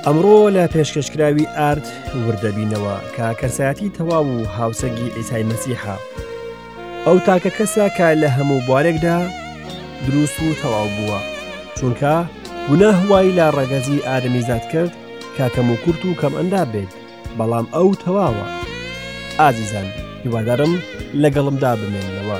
ئەمڕۆ لە پێشکەشکراوی ئارت وردەبینەوە کە کەسایەتی تەواو و هاوسەنگی ئیسای مەسیحە. ئەو تاکە کەسە کە لە هەموو بوارێکدا دروست و تەواو بووە، چونکە گوناه وای لە ڕەگەزی ئادەمیزاد کرد کە کەم و کورت و کەم ئەندام بێت، بەڵام ئەو تەواوە. ئازیزان هیوادارم لەگەڵمدا بمێننەوە.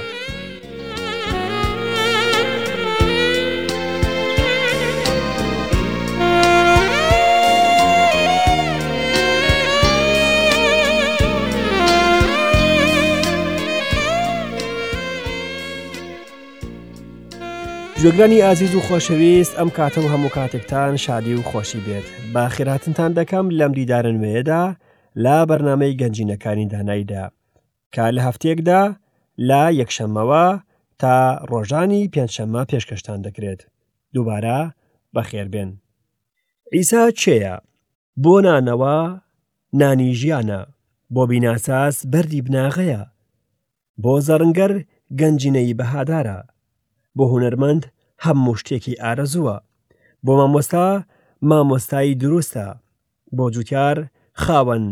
گوێگرانی ئازیز و خۆشەویست ئەم کاتە و هەموو کاتێکتان شادی و خۆشی بێت با خێراتنتان دەکەم لەم دیدارە نوێیەدا لە بەرنمەی گەنجینەکانی دانایدا کە لە هەفتەیەکدا لە یەکشەممەوە تا ڕۆژانی پێنجشەممە پێشکەشتان دەکرێت. دووبارە بەخێربێن. عیسا کێیە؟ بۆ نانەوە نانی ژیانە، بۆ بیناساز بەردی بناغەیە، بۆ زەڕنگەر گەنجینەی بەهادارە، بۆ هونەرمەند هەموو شتێکی ئارەزووە، بۆ مامۆستا مامۆستای دروستە، بۆ جوتیار خاوەن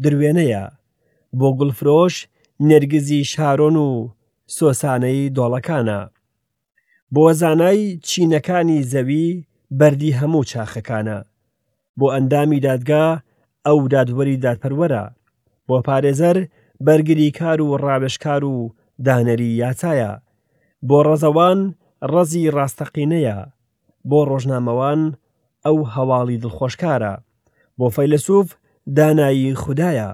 دروێنەیە، بۆ گوڵفرۆش نێرگزی شارۆن و سۆسانەی دۆڵەکانە، بۆ زانای چینەکانی زەوی بەردی هەموو چاخەکانە، بۆ ئەندامی دادگا ئەو دادوەری دادپەروەرە، بۆ پارێزەر بەرگریکار و ڕاوێژکار و دانەری یاسایە، بۆ ڕەزەوان ڕەزی ڕاستەقینەیە، بۆ ڕۆژنامەوان ئەو هەواڵی دڵخۆشکارە، بۆ فەیلەسوف دانایی خودایە،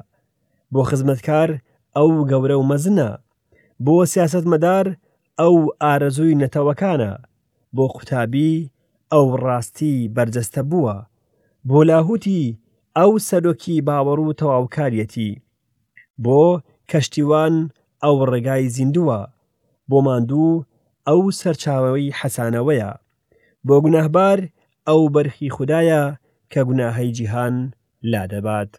بۆ خزمەتکار ئەو گەورە و مەزنە، بۆ سیاسەتمەدار ئەو ئارەزووی نەتەوەکانە، بۆ قوتابی ئەو ڕاستی بەرجەستە بووە، بۆ لاهوتی ئەو سەرۆکی باوەڕ و تەواوکاریەتی، بۆ کەشتیوان ئەو ڕێگای زیندووە، بۆ ماندوو ئەو سەرچاوەی حەسانەوەیە، بۆ گوناهبار ئەو بەرخی خودایە کە گوناهەی جیهان لادەبات.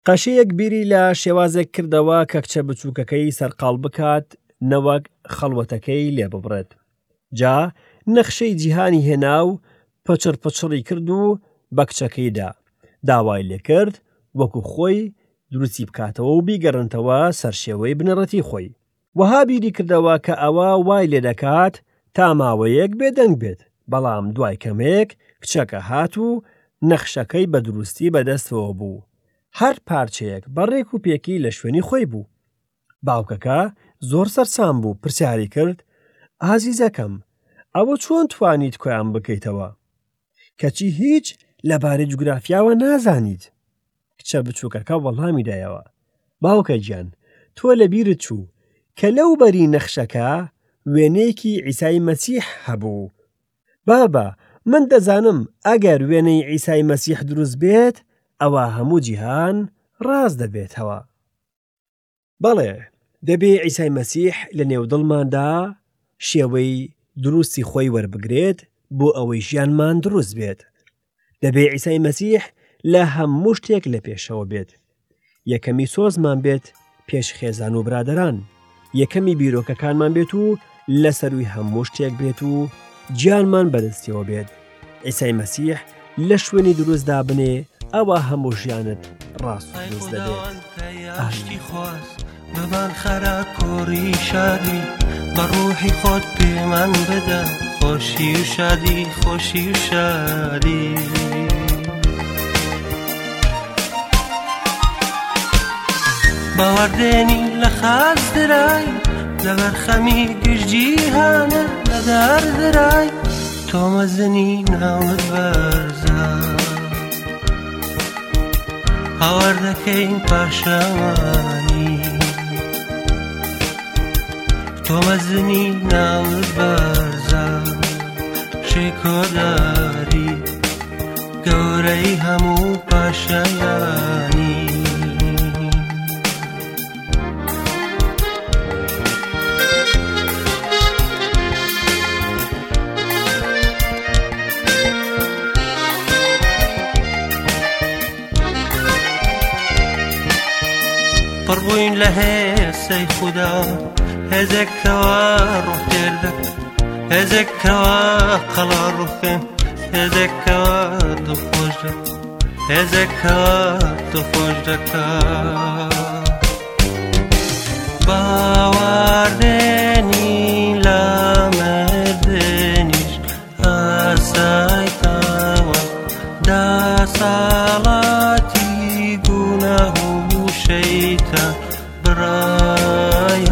قەشەیەک بیری لە شێوازێک کردەوە کە کچە بچووکەکەی سەرقاڵ بکات نەوەک خەڵوەتەکەی لێ ببڕێت. جا نەخشەی جیهانی هێنا و پچڕ پچڕی کرد و بە کچەکەی دا. داوای لێ کرد وەکو خۆی دروستی بکاتەوە و بیگەڕێنتەوە سەر شێوەی بنەڕەتی خۆی. وەها بیری کردەوە کە ئەوە وای لێ دەکات تا ماوەیەک بێدەنگ بێت، بەڵام دوای کەمێک کچەکە هات و نەخشەکەی بە دروستی بەدەستەوە بوو، هەر پارچەیەک بە ڕێک و پێکی لە شوێنی خۆی بوو. باوکەکە زۆر سەرسام بوو، پرسیاری کرد، ئازیزەکەم، ئەوە چۆن توانیت کۆیان بکەیتەوە؟ کەچی هیچ لەبارەی جوگرافیاوە نازانیت. کچە بچووکەکە وەڵامی دایەوە، باوکە گیان، تۆ لەبیرت چوو کە لەو بەری نەخشەکە وێنەیەکی عیسای مەسیح هەبوو. بابە، من دەزانم ئەگەر وێنەی عیسای مەسیح دروست بێت، ئەوا هەموو جیهان ڕاست دەبێتەوە. بەڵێ، دەبێ عیسای مەسیح لە نێو دڵماندا شێوەی دروستی خۆی وەربگرێت بۆ ئەوەی ژیانمان دروست بێت. دەبێ عیسای مەسیح لە هەموو شتێک لە پێشەوە بێت. یەکەمی سۆزمان بێت پێش خێزان و برادەران، یەکەمی بیرۆکەکانمان بێت و لە سەروی هەموو شتێک بێت و گیانمان بەدەستیەوە بێت. عیسای مەسیح لە شوێنی دروست دابنێ ئەوە هەموو ژیانت ڕاست و دروست دەبێت. ئامین. بمان خەرە کۆڕی شادی بە ڕوحی خۆت پێمان بدە خۆشی و شادی خۆشی و شادی. باوەڕدێنی لە خاچ درای لەبەر خەمی گشت جیهانە لەدار درای تۆ مەزنی ناوت بەرزە هاوار دەکەین پاشەوانی تۆ مەزنی ناوت بەرزە شکۆداری گەورەی هەموو پاشایانی. پڕبووین لە هێسەی خودا هێزێک کەوا ڕۆح تێر دەکات هێزێک کەوا قەڵا ڕوخێن هێزێک کەوا دڵخۆش دەکات. هێزێک کەوا دڵخۆش دەکا. باوەڕدێنی لە مردنیش ئاسایتەوە دەسەڵاتی گوناه و شەیتان بڕایەوە.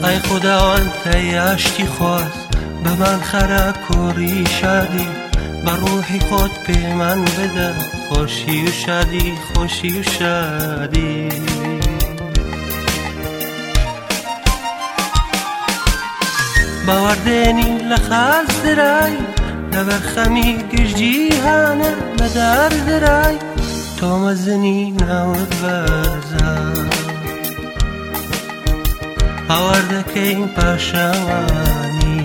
ئەی خوداوەند ئەی ئاشتی خواز بمان خەرە کۆڕی شادی بە ڕوحی خۆت پێمان بدە خۆشی و شادی خۆشی و شادی. باوەڕدێنی لە خاچ درای لەبەر خەمی گشت جیهانە بەدار درای تۆ مەزنی ناوت بەرزە هاوار دەکەین پاشەوانی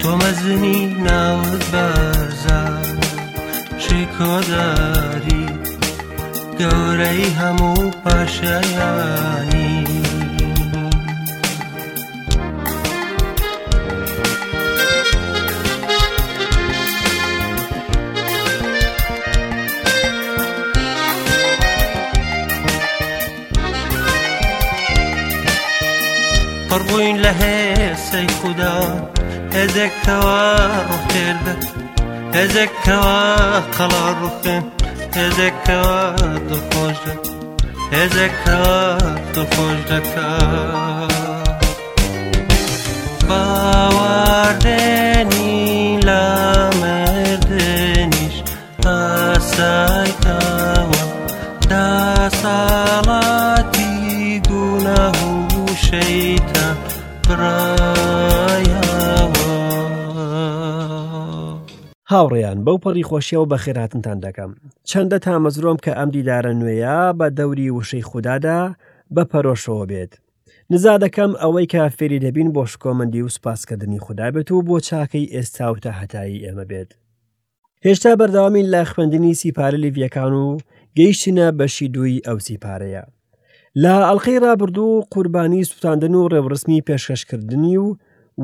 تۆ مەزنی ناوت بەرزە شکۆداری گەورەی هەموو پاشایانی. پڕبووین لە هێسەی خودا هێزێک کەوا ڕۆح تێر دەکات هێزێک کەوا قەڵا ڕوخێن هێزێک کەوا دڵخۆش دەکات هێزێک کەوا دڵخۆش دەکات باوەڕدێنی لە مردنیش ئاسایتەوە دەسەڵاتی گوناه و شەیتان بڕایەوە. هاوڕێیان بەو پەڕی خۆشیەوە بەخێرهاتنتان دەکەم. چەندە تامەزرۆم کە ئەم دیدارە نوێیە بە دەوری وشەی خودادا بە پەرۆشەوە بێت. نزا دەکەم ئەوەی کە فێری دەبین بۆ شکۆمەندی و سوپاسکردنی خودا بێت و بۆ چاکەی ئێستا و تاهەتایی ئێمە بێت. هێشتا بەردەوامین لە خوێندنی سیپارە لیڤیەکان و گەیشتینە بەشی دووی ئەو سیپارەیە. لە ئەڵلقەی ڕابردوو قوربانی سوتاندن و ڕێوڕسمی پێشکەشکردنی و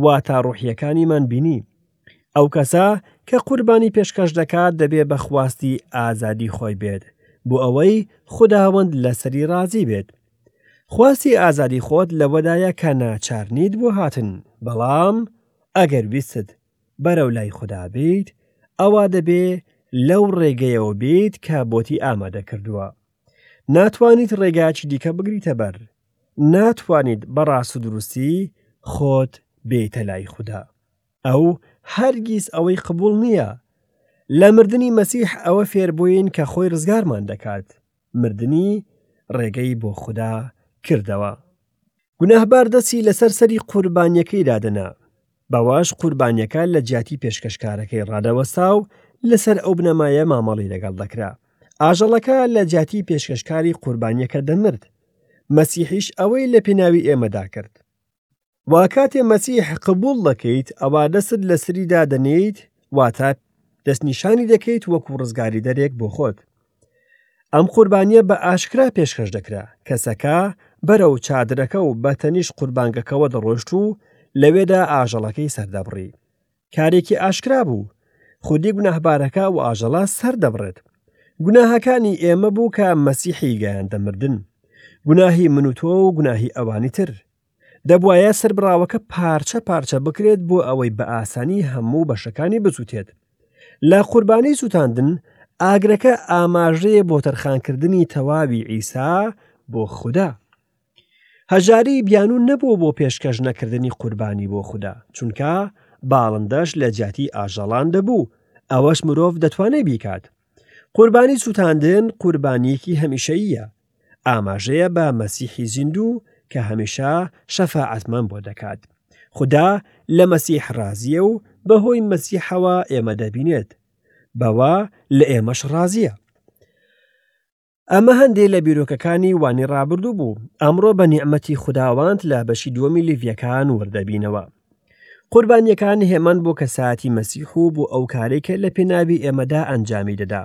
واتا ڕۆحیەکانیمان بینی. ئەو کەسە کە قوربانی پێشکەش دەکات دەبێ بە خواستی ئازادی خۆی بێت بۆ ئەوەی خوداوەند لەسەری ڕازی بێت. خواستی ئازادی خۆت لەوەدایە کە ناچار نیت بۆ هاتن، بەڵام ئەگەر ویستت بەرەو لای خودا بیت، ئەوا دەبێ لەو ڕێگەیەوە بیت کە بۆتی ئامادە کردووە. ناتوانیت ڕێگایەکی دیکە بگریتە بەر. ناتوانیت بە ڕاست و دروستی خۆت بێیتە لای خودا. ئەو هەرگیز ئەوەی قبوڵ نییە. لە مردنی مەسیح ئەوە فێربووین کە خۆی ڕزگارمان دەکات. مردنی ڕێگەی بۆ خودا کردەوە. گوناهبار دەستی لەسەر سەری قوربانیەکەی دادەنا، بەوەش قوربانیەکە لە جیاتی پێشکەشکارەکەی ڕادەوەستا و لەسەر ئەو بنەمایە مامەڵی لەگەڵ دەکرا. ئاژەڵەکە لە جیاتی پێشکەشکاری قوربانیەکە دەمرد. مەسیحیش ئەوەی لە پێناوی ئێمەدا کرد. وا کاتێ مەسیح قبوڵ دەکەیت ئەوا دەستت لەسەری دادەنێیت واتە دەستنیشانی دەکەیت وەکو ڕزگاریدەرێک بۆ خۆت. ئەم قوربانیە بە ئاشکرا پێشکەش دەکرا، کەسەکە بەرەو چادرەکە و بە تەنیشت قوربانگەکەوە دەڕۆشت و لەوێدا ئاژەڵەکەی سەردەبڕی. کارێکی ئاشکرا بوو، خودی گوناهبارەکە ئەو ئاژەڵە سەردەبڕێت. گوناهەکانی ئێمە بوو کە مەسیحی گەیاندە مردن. گوناهی من و تۆ و گوناهی ئەوانی تر. دەبوایە سەربڕاوەکە پارچە پارچە بکرێت بۆ ئەوەی بە ئاسانی هەموو بەشەکانی بسووتێت. لە قوربانی سووتاندن، ئاگرەکە ئاماژەیە بۆ تەرخانکردنی تەواوی عیسا بۆ خودا. هەژاری بیانوو نەبوو بۆ پێشکەش نەکردنی قوربانی بۆ خودا، چونکە باڵندەش لە جیاتی ئاژەڵان دەبوو، ئەوەش مرۆڤ دەتوانێت بیکات. قوربانی سووتاندن قوربانییەکی هەمیشەییە، ئاماژەیە بە مەسیحی زیندوو کە هەمیشە شەفاعەتمان بۆ دەکات. خودا لە مەسیح ڕازییە و بەهۆی مەسیحەوە ئێمە دەبینێت، بەوە لە ئێمەش ڕازییە. ئەمە هەندێ لە بیرۆکەکانی وانی ڕابردوو بوو، ئەمڕۆ بە نیعمەتی خوداوەند لە بەشی دووەمی لیڤیەکان وردەبینەوە. قوربانیەکان هێمان بۆ کەسایەتی مەسیح و بۆ ئەو کارەی کە لە پێناوی ئێمەدا ئەنجامی دەدا.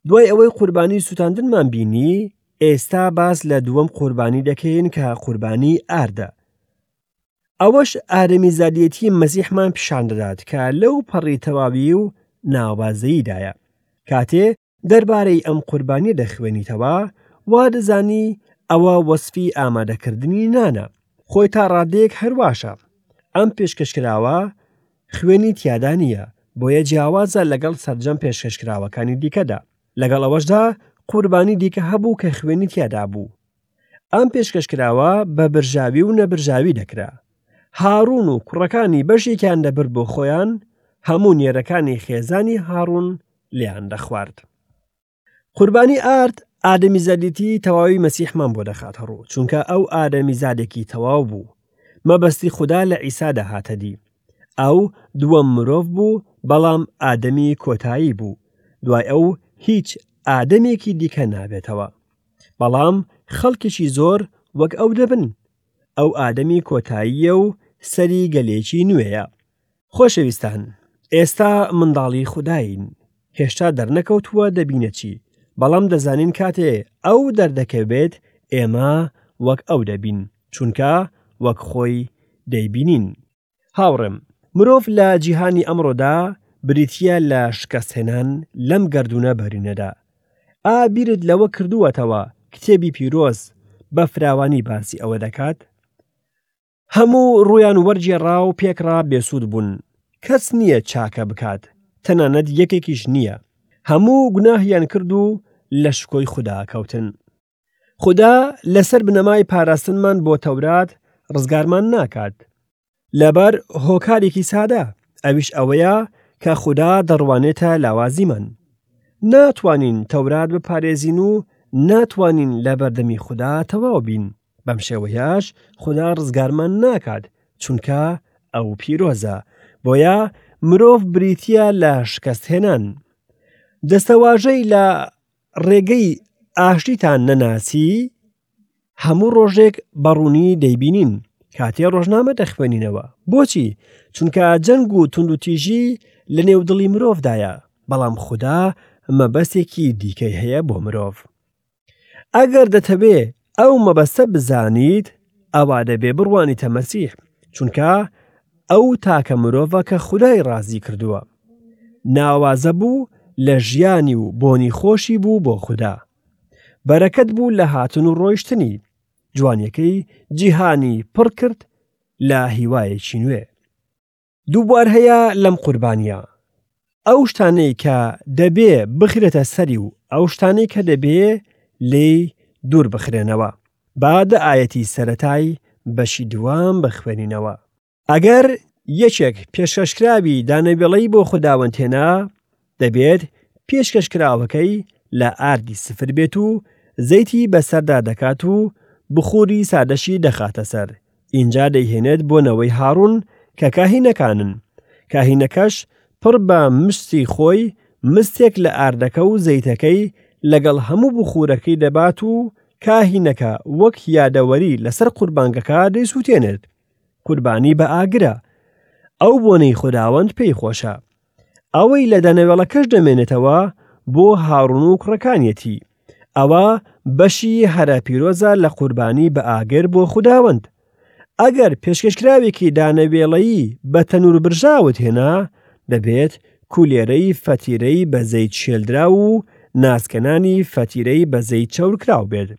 دوای ئەوەی قوربانی سووتاندنمان بینی، ئێستا باس لە دووەم قوربانی دەکەین کە قوربانی ئاردە. ئەوەش ئادەمیزادێتی مەسیحمان پیشان دەدات کە لەو پەڕی تەواوی و ناوازەییدایە. کاتێ دەربارەی ئەم قوربانیە دەخوێنیتەوە، وا دەزانی ئەوە وەسفی ئامادەکردنی نانە. خۆی تا ڕادەیەک هەرواشە. ئەم پێشکەشکراوە خوێنی تیادا نییە، بۆیە جیاوازە لەگەڵ سەرجەم پێشکەشکراوەکانی دیکەدا. لەگەڵ ئەوەشدا قوربانی دیکە هەبوو کە خوێنی تیادا بوو. ئەم پێشکەشکراوە بە برژاوی و نەبرژاوی دەکرا. هاڕون و کوڕەکانی بەشێکیان دەبرد بۆ خۆیان، هەموو نێرەکانی خێزانی هاڕون لێیان دەخوارد. قوربانی ئارد ئادەمیزادێتی تەواوی مەسیحمان بۆ دەخاتە ڕوو، چونکە ئەو ئادەمیزادێکی تەواو بوو. مەبەستی خودا لە عیسادا هاتە دی. ئەو دووەم مرۆڤ بوو، بەڵام ئادەمی کۆتایی بوو. دوای ئەو هیچ ئادەمێکی دیکە نابێتەوە. بەڵام خەڵکێکی زۆر وەک ئەو دەبن. ئەو ئادەمی کۆتاییە و سەری گەلێکی نوێیە. خۆشەویستان، ئێستا منداڵی خوداین. هێشتا دەرنەکەوتووە دەبینە چی، بەڵام دەزانین کاتێ ئەو دەردەکەوێت ئێمە وەک ئەو دەبین، چونکە وەک خۆی دەیبینین. هاوڕێم، مرۆڤ لە جیهانی ئەمڕۆدا بریتییە لە شکستهێنان لەم گەردوونە بەرینەدا. ئا بیرت لەوە کردووەتەوە کتێبی پیرۆز بە فراوانی باسی ئەوە دەکات؟ هەموو ڕوویان وەرگێڕا و پێکڕا بێسوود بوون، کەس نییە چاکە بکات، تەنانەت یەکێکیش نییە. هەموو گوناهیان کرد و لە شکۆی خودا کەوتن. خودا لەسەر بنەمای پاراستنمان بۆ تەورات ڕزگارمان ناکات. لەبەر هۆکارێکی سادە، ئەویش ئەوەیە کە خودا دەڕوانێتە لاوازیمان. ناتوانین تەورات بپارێزین و ناتوانین لە بەردەمی خودا تەواو بین. بەم شێوەیەش خودا ڕزگارمان ناکات، چونکە ئەو پیرۆزە. بۆیە مرۆڤ بریتییە لە شکستهێنان. دەستەواژەی لە ڕێگەی ئاشتیتان نەناسی هەموو ڕۆژێک بەڕوونی دەیبینین کاتێ ڕۆژنامە دەخوێنینەوە بۆچی چونکە جەنگ و توندوتیژی لە نێو دڵی مرۆڤدایە بەڵام خودا مەبەستێکی دیکەی هەیە بۆ مرۆڤ ئەگەر دەتەوێ ئەو مەبەستە بزانیت ئەوا دەبێ بڕوانیتە مەسیح چونکە ئەو تاکە مرۆڤە کە خودای ڕازی کردووە ناوازە بوو لە ژیانی و بۆنی خۆشی بوو بۆ خودا بەرەکەت بوو لە هاتن و ڕۆیشتنی جوانیەکەی جیهانی پڕ کرد لە هیوایەکی نوێ دووبوار هەیە لەم قوربانیە ئەو شتانەی کە دەبێ بخرێتە سەری و ئەو شتانەی کە دەبێ لێی دوور بخرێنەوە با دە ئایەتی سەتای بەشی دووەم بخوێنینەوە ئەگەر یەکێک پێشکەشکراوی دانەوێڵەی بۆ خوداوەند هێنا، دەبێت پێشکەشکراوەکەی لە ئاردی سفر بێت و زەیتی بەسەردا دەکات و بخوری سادەشی دەخاتە سەر، ئینجا دەیهێنێت بۆ نەوەی هاڕون کە کاهینەکانن. کاهینەکەش پڕ بە مشتی خۆی مستێک لە ئاردەکە و زەیتەکەی لەگەڵ هەموو بخورەکەی دەبات و کاهینەکە وەک یادەوەری لەسەر قوربانگەکە دەیسووتێنێت. قوربانی بە ئاگرە ئەو بۆنەی خوداوەند پێی خۆشە ئەوەی لە دەنەوێڵەکەش دەمێنێتەوە بۆ هاڕون و کوڕەکانیەتی ئەوە بەشی هەرە پیرۆزە لە قوربانی بە ئاگر بۆ خوداوەند ئەگەر پێشکەشکراوێکی دانەوێڵەیی بە تەنور برژاوت هێنا دەبێت کولێرەی فەتیرەی بە زەیت شێلدراو و ناسکەنانی فەتیرەی بە زەیت چەورکراو بێت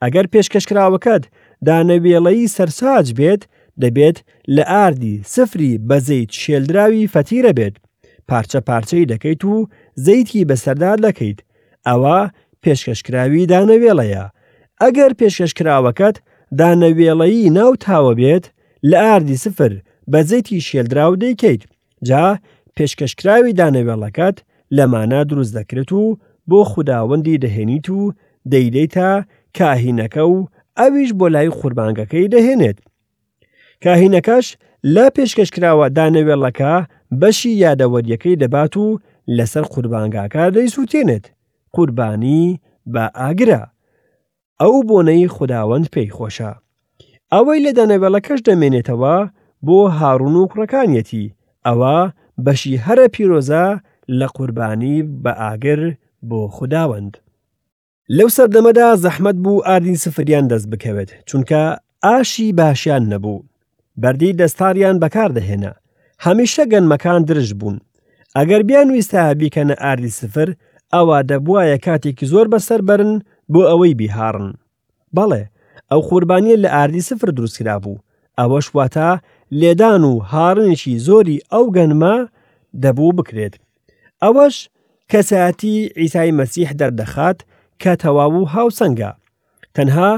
ئەگەر پێشکەشکراوەکەت دانەوێڵەیی سەرساج بێت، دەبێت لە ئاردی سفری بە زەیت شێلدراوی فەتیرە بێت، پارچە پارچەی دەکەیت و زەیتی بەسەردا دەکەیت، ئەوە پێشکەشکراوی دانەوێڵەیە. ئەگەر پێشکەشکراوەکەت دانەوێڵەیی ناو تاوە بێت، لە ئاردی سفر بە زەیتی شێلدراو دەیکەیت، جا پێشکەشکراوی دانەوێڵەکەت لەمانە دروست دەکرێت و بۆ خوداوەندی دەهێنیت و دەیدەیتە کاهینەکە و ئەویش بۆ لای قوربانگەکەی دەهێنێت. کاهینەکەش لە پێشکەشکراوە دانەوێڵەکە بەشی یادەوەریەکەی دەبات و لەسەر قوربانگاکە دەیسووتێنێت، قوربانی بە ئاگرە. ئەو بۆنەی خوداوەند پێی خۆشە. ئەوەی لە دانەوێڵەکەش دەمێنێتەوە بۆ هاڕون و کوڕەکانیەتی، ئەوە بەشی هەرە پیرۆزە لە قوربانی بە ئاگر بۆ خوداوەند. لەو سەردەمەدا زەحمەت بوو ئاردی سفریان دەست بکەوێت، چونکە ئاشی باشیان نەبوو. بەردی دەستاریان بەکار دەهێنا. هەمیشە گەنمەکان درشت بوون. ئەگەر بیانویستایە بیکەنە ئاردی سفر، ئەوا دەبوایە کاتێکی زۆر بەسەر بەرن بۆ ئەوەی بیهاڕن. بەڵێ، ئەو قوربانییە لە ئاردی سفر دروستکرابوو، ئەوەش واتە لێدان و هاڕینێکی زۆری ئەو گەنمە دەبوو بکرێت. ئەوەش کەسایەتی عیسای مەسیح دەردەخات کە تەواو و هاوسەنگە. تەنها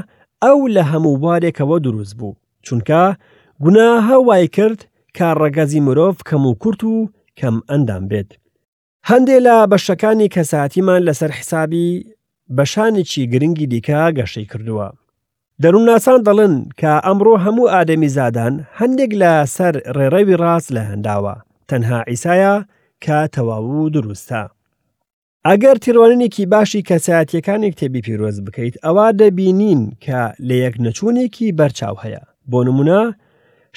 ئەو لە هەموو بوارێکەوە دروست بوو، چونکە گوناهە وای کرد کە ڕەگەزی مرۆڤ کەم و کورت و کەم ئەندام بێت. هەندێ لە بەشەکانی کەساتیمان لەسەر حسابی بەشانێکی گرنگی دیکە گەشەی کردووە. دەروونناسان دەڵێن کە ئەمڕۆ هەموو ئادەمیزادان هەندێک لە سەر ڕێڕەوی ڕاست لایانداوە، تەنها عیسایە کە تەواو و دروستە. ئەگەر تێڕوانینێکی باشی کەسایەتییەکانی کتێبی پیرۆز بکەیت ئەوا دەبینین کە لەیەکنەچوونێکی بەرچاو هەیە. بۆ نمونە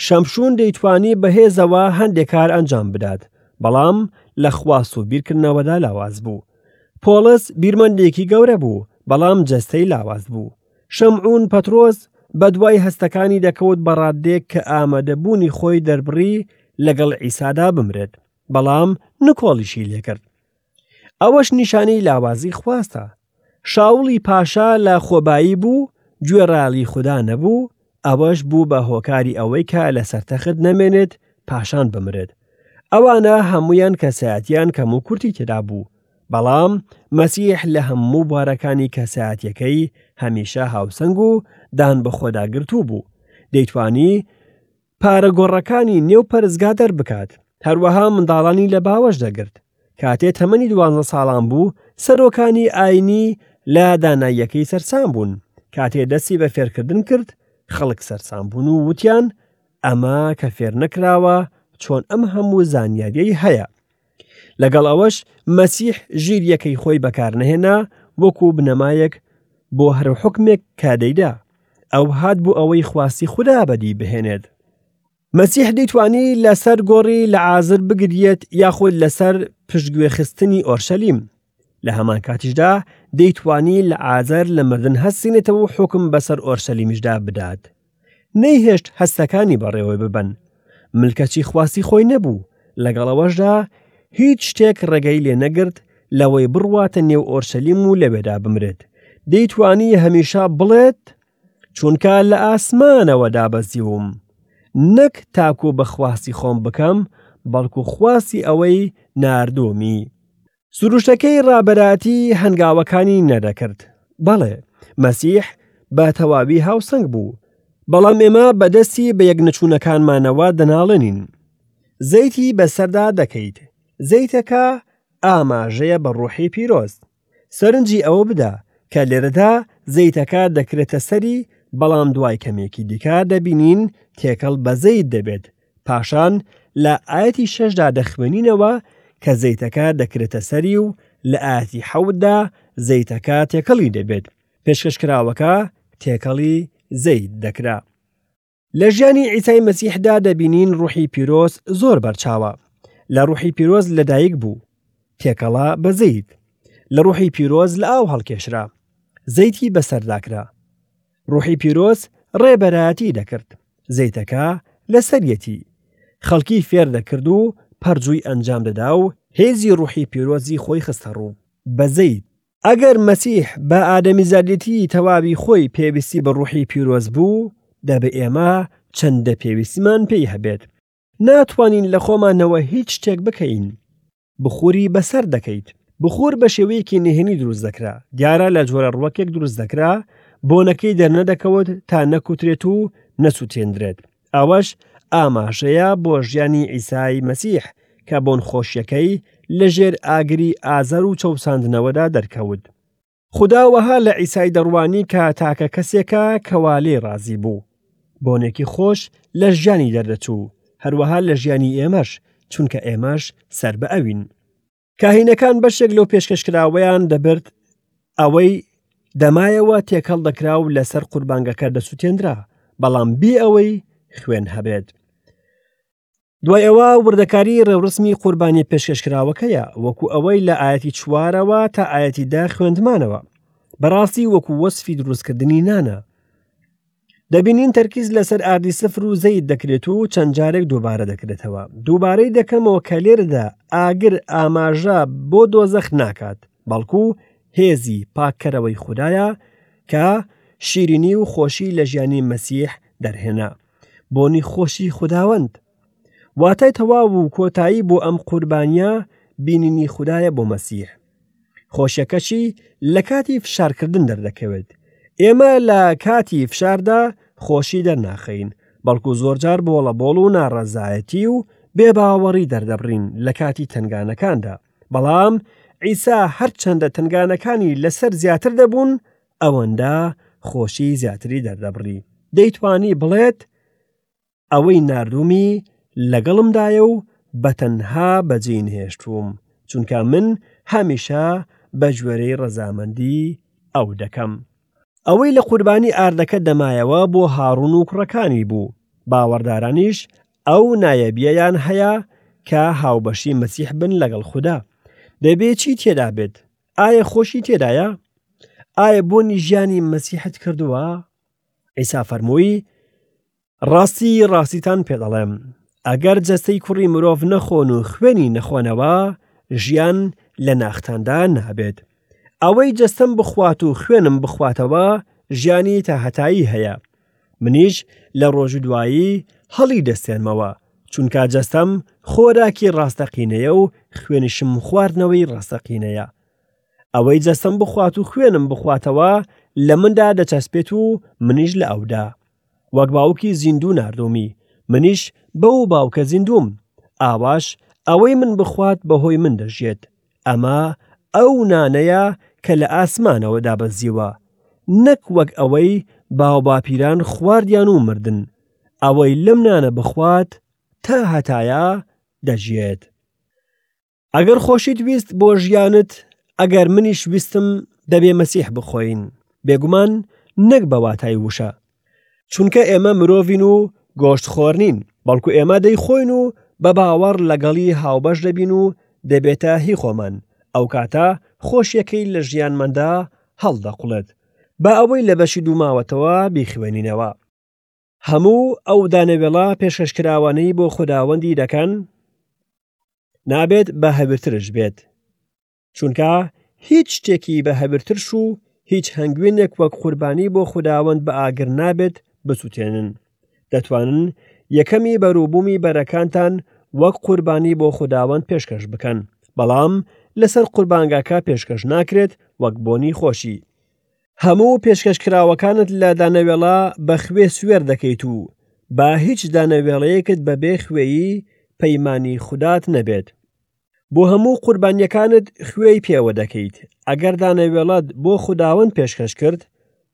شەمشون دەیتوانی بەهێزەوە هەندێک کار ئەنجام بدات، بەڵام لە خواست و بیرکردنەوەدا لاواز بوو. پۆڵس بیرمەندێکی گەورە بوو، بەڵام جەستەی لاواز بوو. شەمعون پەترۆس بەدوای هەستەکانی دەکەوت بە ڕاددەیەک کە ئامادەبوونی خۆی دەربڕی لەگەڵ عیسادا بمرێت، بەڵام نکۆڵیشی لێکرد. ئەوەش نیشانەی لاوازی خواستە. شاوڵی پاشا لە خۆبایی بوو، گوێڕایەڵی خودا نەبوو، ئەوەش بوو بە هۆکاری ئەوەی کە لەسەر تەخت نەمێنێت پاشان بمرێت. ئەوانە هەموویان کەسایەتیان کەم و کورتی تێدا بوو، بەڵام مەسیح لە هەموو بوارەکانی کەسایەتیەکەی هەمیشە هاوسەنگ و دان بەخۆداگرتوو بوو. دەیتوانی پارە گۆڕەکانی نێو پەرستگا دەربکات، هەروەها منداڵانی لە باوەش دەگرت. کاتێ تەمەنی دوانزە ساڵان بوو، سەرۆکانی ئاینی لە داناییەکەی سەرسام بوون. کاتێ دەستی بە فێرکردن کرد، خەڵک سەرسام بوون و وتیان، ئەمە کە فێر نەکراوە، چۆن ئەم هەموو زانیارییەی هەیە؟ لەگەڵ ئەوەش مەسیح ژیرییەکەی خۆی بەکارنەهێنا وەکو بنەمایەک بۆ هەر حوکمێک کە دەیدا. ئەو هات بۆ ئەوەی خواستی خودا بەدی بهێنێت. مەسیح دەیتوانی لەسەر گۆڕی لەعازر بگریێت یاخود لەسەر پشتگوێخستنی ئۆرشەلیم. لە هەمان کاتیشدا دەیتوانی لەعازر لە مردن هەستێنێتەوە و حوکم بەسەر ئۆرشەلیمیشدا بدات. نەیهێشت هەستەکانی بەڕێوە ببەن. ملکەچی خواستی خۆی نەبوو، لەگەڵ ئەوەشدا هیچ شتێک ڕێگەی لێ نەگرت لەوەی بڕواتە نێو ئۆرشەلیم و لەوێدا بمرێت. دەیتوانی هەمیشە بڵێت، چونکە لە ئاسمانەوە دابەزیوم، نەک تاکو بە خواستی خۆم بکەم، بەڵکو خواستی ئەوەی ناردوومی. سروشتەکەی ڕابەرایەتی هەنگاوەکانی نەدەکرد. بەڵێ، مەسیح بە تەواوی هاوسەنگ بوو، بەڵام ئێمە بەدەستی بەیەکنەچوونەکانمانەوە دەناڵێنین. زەیتی بەسەردا دەکەیت. زەیتەکە ئاماژەیە بە ڕۆحی پیرۆز. سەرنجی ئەوە بدە کە لێرەدا زەیتەکە دەکرێتە سەری، بەڵام دوای کەمێکی دیکە دەبینین تێکەڵ بە زەیت دەبێت، پاشان لە ئایەتی شەشدا دەخوێنینەوە کە زەیتەکە دەکرێتە سەری و لە ئایەتی حەوتدا زەیتەکە تێکەڵی دەبێت، پێشکەشکراوەکە تێکەڵی زەیت دەکرا. لە ژیانی عیسای مەسیحدا دەبینین ڕوحی پیرۆز زۆر بەرچاوە. لە ڕوحی پیرۆز لەدایک بوو، تێکەڵە بە زەیت. لە ڕوحی پیرۆز لە ئاو هەڵکێشرا، زەیتی بەسەردا کرا. ڕوحی پیرۆز ڕێبەرایەتی دەکرد، زەیتەکە لەسەریەتی. خەڵکی فێر دەکرد و پەرجووی ئەنجام دەدا و هێزی ڕوحی پیرۆزی خۆی خستەڕوو بە زەیت. ئەگەر مەسیح بە ئادەمیزادێتی تەواوی خۆی پێویستی بە ڕوحی پیرۆز بوو، دەبێ ئێمە چەندە پێویستیمان پێی هەبێت. ناتوانین لە خۆمانەوە هیچ شتێک بکەین. بخوری بەسەر دەکەیت. بخور بە شێوەیەکی نهێنی دروست دەکرا، دیارە لە جۆرە ڕوەکێک دروست دەکرا، بۆنەکەی دەرنەدەکەوت تا نەکوترێت و نەسوتێندرێت. ئەوەش ئاماژەیە بۆ ژیانی عیسای مەسیح کە بۆنخۆشیەکەی لەژێر ئاگری ئازار و چەوساندنەوەدا دەرکەوت. خودا وەها لە عیسای دەڕوانی کە تاکە کەسێکە کەوا لێی ڕازی بوو. بۆنێکی خۆش لە ژیانی دەردەچوو، هەروەها لە ژیانی ئێمەش، چونکە ئێمەش سەر بە ئەوین. کاهینەکان بەشێک لەو پێشکەشکراوەیان دەبرد، ئەوەی دەمایەوە تێکەڵ دەکرا و لەسەر قوربانگەکە دەسوتێنرا، بەڵام بێ ئەوەی خوێن هەبێت. دوای ئەوە وردەکاری ڕێوڕسمی قوربانی پێشکەشکراوەکەیە وەکو ئەوەی لە ئاەتی چوارەوە تا ئاەتی دا خوێندمانەوە بەڕاستی وەکو وەسفی دروستکردنی نانە. دەبینین تەرکیز لەسەر ئاردی سفر و زەیت دەکرێت و چەند جارێک دووبارە دەکرێتەوە. دووبارەی دەکەمەوە کە لێرەدا ئاگر ئاماژە بۆ دۆزەخ ناکات، بەڵکو هێزی پاککەرەوەی خودایە کە شیرینی و خۆشی لە ژیانی مەسیح دەرهێنا. بۆنی خۆشی خوداوەند. واتای تەواو و کۆتایی بۆ ئەم قوربانیە بینینی خودایە بۆ مەسیح. خۆشیەکەشی لە کاتی فشارکردن دەردەکەوێت. ئێمە لە کاتی فشاردا خۆشی دەرناخەین، بەڵکو زۆرجار بۆڵەبۆڵ و ناڕەزایەتی و بێباوەڕی دەردەبڕین لە کاتی تەنگانەکاندا. بەڵام عیسا هەرچەندە تەنگانەکانی لەسەر زیاتر دەبوون، ئەوەندە خۆشی زیاتری دەردەبڕی. دەیتوانی بڵێت، ئەوەی ناردوومی لەگەڵمدایە و بە تەنها بەجێی نەهێشتووم، چونکە من هەمیشە بە گوێرەی ڕەزامەندی ئەو دەکەم. ئەوەی لە قوربانی ئاردەکە دەمایەوە بۆ هاڕون و کوڕەکانی بوو، باوەڕدارانیش ئەو نایەبیەیان هەیە کە هاوبەشی مەسیح بن لەگەڵ خودا. دەبێ چی تێدا بێت؟ ئایا خۆشی تێدایە؟ ئایا بۆنی ژیانی مەسیحت کردووە؟ عیسا فەرمووی، ڕاستی ڕاستیتان پێ دەڵێم، ئەگەر جەستەی کوڕی مرۆڤ نەخۆن و خوێنی نەخۆنەوە، ژیان لە ناختاندا نابێت. ئەوەی جەستەم بخوات و خوێنم بخواتەوە، ژیانی تاهەتایی هەیە. منیش لە ڕۆژی دوایی هەڵی دەستێنمەوە، چونکە جەستەم خۆراکی ڕاستەقینەیە و خوێنیشم خواردنەوەی ڕاستەقینەیە. ئەوەی جەستەم بخوات و خوێنم بخواتەوە لە مندا دەچەسپێت و منیش لە ئەودا. وەک باوکی زیندوو ناردوومی، منیش بەو باوکە زیندووم، ئاواش ئەوەی من بخوات بەهۆی من دەژیێت. ئەمە ئەو نانەیە کە لە ئاسمانەوە دابەزیوە، نەک وەک ئەوەی باوباپیران خواردیان و مردن. ئەوەی لەم نانە بخوات تا هەتایە دەژیێت. ئەگەر خۆشیت ویست بۆ ژیانت، ئەگەر منیش ویستم دەبێ مەسیح بخۆین، بێگومان نەک بە واتای وشە. چونکە ئێمە مرۆڤین و گۆشت خۆر نین، بەڵکو ئێمە دەیخۆین و بە باوەڕ لەگەڵی هاوبەش دەبین و دەبێتە هی خۆمان، ئەو کاتە خۆشیەکەی لە ژیانماندا هەڵدەقوڵێت. با ئەوەی لە بەشی دوو ماوەتەوە بیخوێنینەوە. هەموو ئەو دانەوێڵە پێشکەشکراوانەی بۆ خوداوەندی دەکەن نابێت بە هەویرترش بێت، چونکە هیچ شتێکی بە هەویرترش و هیچ هەنگوینێک وەک قوربانی بۆ خوداوەند بە ئاگر نابێت بسوتێنن. دەتوانن یەکەمی بەروبوومی بەرەکانتان وەک قوربانی بۆ خوداوەند پێشکەش بکەن، بەڵام لەسەر قوربانگاکە پێشکەش ناکرێت وەک بۆنی خۆشی. هەموو پێشکەشکراوەکانت لە دانەوێڵە بە خوێ سوێر دەکەیت و با هیچ دانەوێڵەیەکت بەبێ خوێی پەیمانی خودات نەبێت. بۆ هەموو قوربانییەکانت خوێی پێوە دەکەیت. ئەگەر دانەوێڵەت بۆ خوداوەند پێشکەش کرد،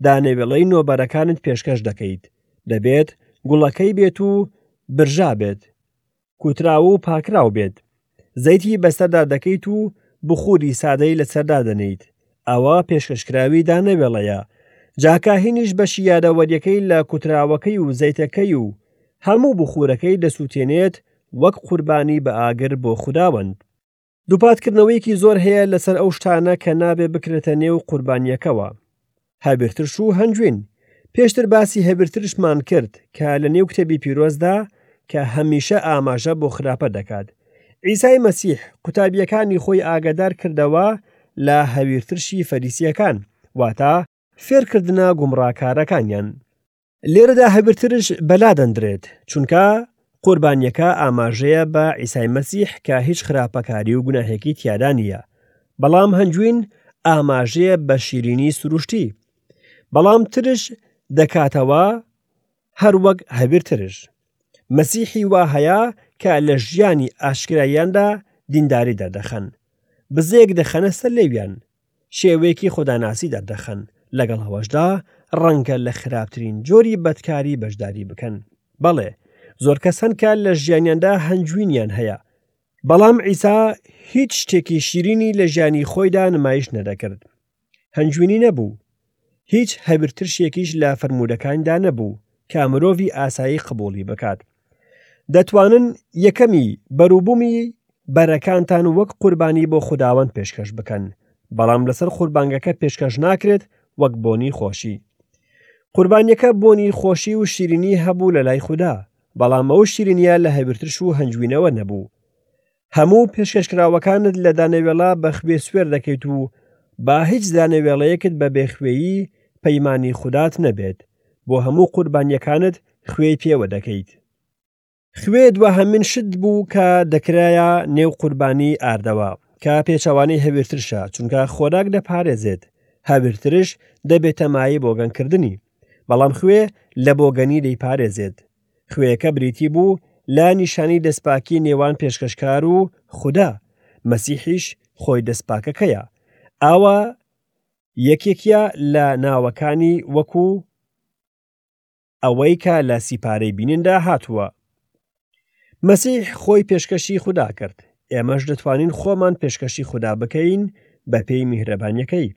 دانەوێڵەی نۆبەرەکانت پێشکەش دەکەیت. دەبێت گوڵەکەی بێت و برژا بێت. کوتراو و پاکراو بێت. زەیتی بەسەردا دەکەیت و بخوری سادەی لەسەر دادەنێیت. ئەوە پێشکەشکراوی دانەوێڵەیە. جا کاهینیش بەشی یادەوەریەکەی لە کوتراوەکەی و زەیتەکەی و هەموو بخورەکەی دەسووتێنێت وەک قوربانی بە ئاگر بۆ خوداوەند. دووپاتکردنەوەیەکی زۆر هەیە لەسەر ئەو شتانە کە نابێ بکرێتە نێو قوربانییەکەوە. هەویرترش و هەنجوین. پێشتر باسی هەویرترشمان کرد کە لە نێو کتێبی پیرۆزدا کە هەمیشە ئاماژە بۆ خراپە دەکات. عیسای مەسیح قوتابییەکانی خۆی ئاگادار کردەوە لە هەویرترشی فەریسییەکان، واتە فێرکردنە گومڕاکارەکانیان. لێرەدا هەویرترش بەلا دەندرێت، چونکە قوربانیەکە ئاماژەیە بە عیسای مەسیح کە هیچ خراپەکاری و گوناهێکی تیادا نییە، بەڵام هەنجوین ئاماژەیە بە شیرینی سروشتی، بەڵام ترش دەکاتەوە هەر وەک هەویرترش. مەسیحی وا هەیە کە لە ژیانی ئاشکرایاندا دینداری دەردەخەن، بزەیەک دەخەنە سەر لێویان، شێوەیەکی خوداناسی دەردەخەن، لەگەڵ ئەوەشدا ڕەنگە لە خراپترین جۆری بەدکاری بەشداری بکەن. بەڵێ، زۆر کەس هەن کە لە ژیانیاندا هەنجوینیان هەیە، بەڵام عیسا هیچ شتێکی شیرینی لە ژیانی خۆیدا نمایش نەدەکرد. هەنجوینی نەبوو. هیچ هەویرترشێکیش لە فەرموودەکانیدا نەبوو کە مرۆڤی ئاسایی قبوڵی بکات. دەتوانن یەکەمی بەروبوومی بەرەکانتان وەک قوربانی بۆ خوداوەند پێشکەش بکەن، بەڵام لەسەر قوربانگەکە پێشکەش ناکرێت وەک بۆنی خۆشی. قوربانیەکە بۆنی خۆشی و شیرینی هەبوو لە لای خودا، بەڵام ئەو شیرینیە لە هەویرترش و هەنجوینەوە نەبوو. هەموو پێشکەشکراوەکانت لە دانەوێڵە بە خوێ سوێر دەکەیت و با هیچ دانەوێڵەیەکت بە بێخوێی پەیمانی خودات نەبێت، بۆ هەموو قوربانیەکانت خوێی پێوە دەکەیت. خوێ دواهەمین شت بوو کە دەکرایە نێو قوربانی ئاردەوە، کە پێچەوانەی هەویرترشە، چونکە خۆراک دەپارێزێت، هەویرترش دەبێتە مایەی بۆگەنکردنی، بەڵام خوێ لە بۆگەنی دەیپارێزێت. خوێیەکە بریتی بوو لە نیشانەی دەستپاکی نێوان پێشکەشکار و خودا، مەسیحیش خۆی دەستپاکەکەیە. ئاوا یەکێکیە لە ناوەکانی وەکو ئەوەی کە لە سیپارەی بینیندا هاتووە. مەسیح خۆی پێشکەشی خودا کرد، ئێمەش دەتوانین خۆمان پێشکەشی خودا بکەین بە پێی میهرەبانیەکەی.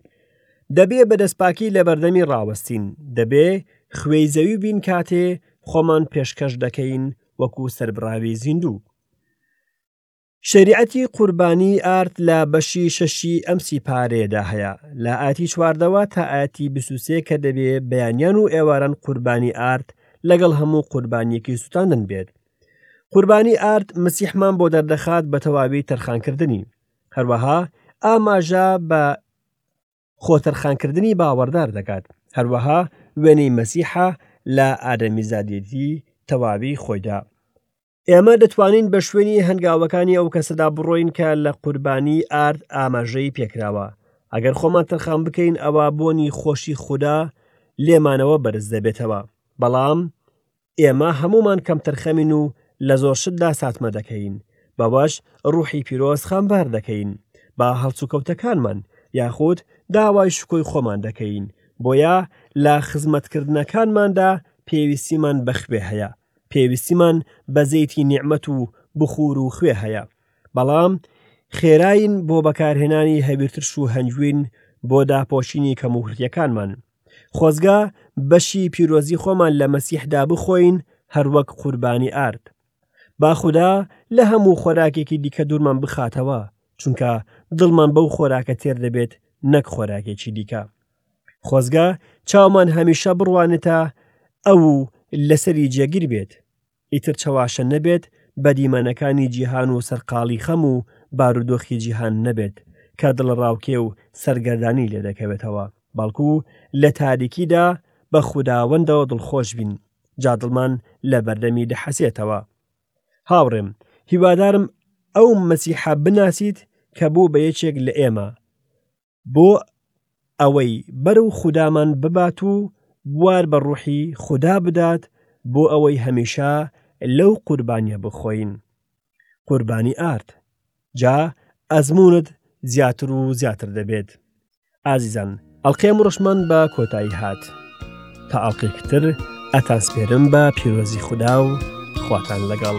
دەبێ بە دەستپاکی لە بەردەمی ڕاوەستین، دەبێ خوێی زەوی بین کاتێ خۆمان پێشکەش دەکەین وەکو سەربڕاوی زیندوو. شەریعەتی قوربانی ئارد لە بەشی شەشی ئەم سیپارەیەدا هەیە لە ئاتی چواردەوە تا ئاتی 23 کە دەبێ بەیانیان و ئێواران قوربانی ئارد لەگەڵ هەموو قوربانیەکی سوتاندن بێت. قوربانی ئارد مەسیحمان بۆ دەردەخات بە تەواوی تەرخانکردنی. هەروەها ئاماژە بە خۆتەرخانکردنی باوەڕدار دەکات، هەروەها وێنەی مەسیحە لە ئادەمیزادێتی تەواوی خۆیدا. ئێمە دەتوانین بە شوێنی هەنگاوەکانی ئەو کەسەدا بڕۆین کە لە قوربانی ئارد ئاماژەی پێکراوە. ئەگەر خۆمان تەرخان بکەین ئەوا بۆنی خۆشی خودا لێمانەوە بەرز دەبێتەوە. بەڵام ئێمە هەموومان کەمتەرخەمین و لە زۆر شتدا ساتمە دەکەین، بەوەش ڕوحی پیرۆز خەمبار دەکەین بە هەڵسوکەوتەکانمان، یاخود داوای شکۆی خۆمان دەکەین، بۆیە لە خزمەتکردنەکانماندا پێویستیمان بە خوێ هەیە، پێویستیمان بە زەیتی نیعمەت و بخور و خوێ هەیە، بەڵام خێراین بۆ بەکارهێنانی هەویرترش و هەنجوین بۆ داپۆشینی کەموکورتیەکانمان. خۆزگە بەشی پیرۆزی خۆمان لە مەسیحدا بخۆین هەروەک قوربانی ئارد. با خودا لە هەموو خۆراکێکی دیکە دوورمان بخاتەوە، چونکە دڵمان بەو خۆراکە تێر دەبێت نەک خۆراکێکی دیکە. خۆزگە چاومان هەمیشە بڕوانێتە ئەو و لەسەری جێگیر بێت. ئیتر چەواشە نەبێت بە دیمەنەکانی جیهان و سەرقاڵی خەم و بارودۆخی جیهان نەبێت کە دڵەڕاوکێ و سەرگەردانی لێ دەکەوێتەوە، بەڵکو لە تاریکیدا بە خوداوەندەوە دڵخۆش بین، جا دڵمان لە بەردەمی دەحەسێتەوە. هاوڕێم، هیوادارم ئەو مەسیحە بناسیت کە بوو بە یەکێک لە ئێمە، بۆ ئەوەی بەرەو خودامان ببات و بوار بە ڕوحی خودا بدات بۆ ئەوەی هەمیشە لەو قوربانیە بخۆین قوربانی ئارد جا ئەزمونت زیاتر و زیاتر دەبێت ئازیزان ئەڵقەی ئەمڕۆشمان بە کۆتایی هات تا ئەڵقەیەکی تر ئەتانسپێرم بە پیرۆزی خودا و خواتان لەگەڵ.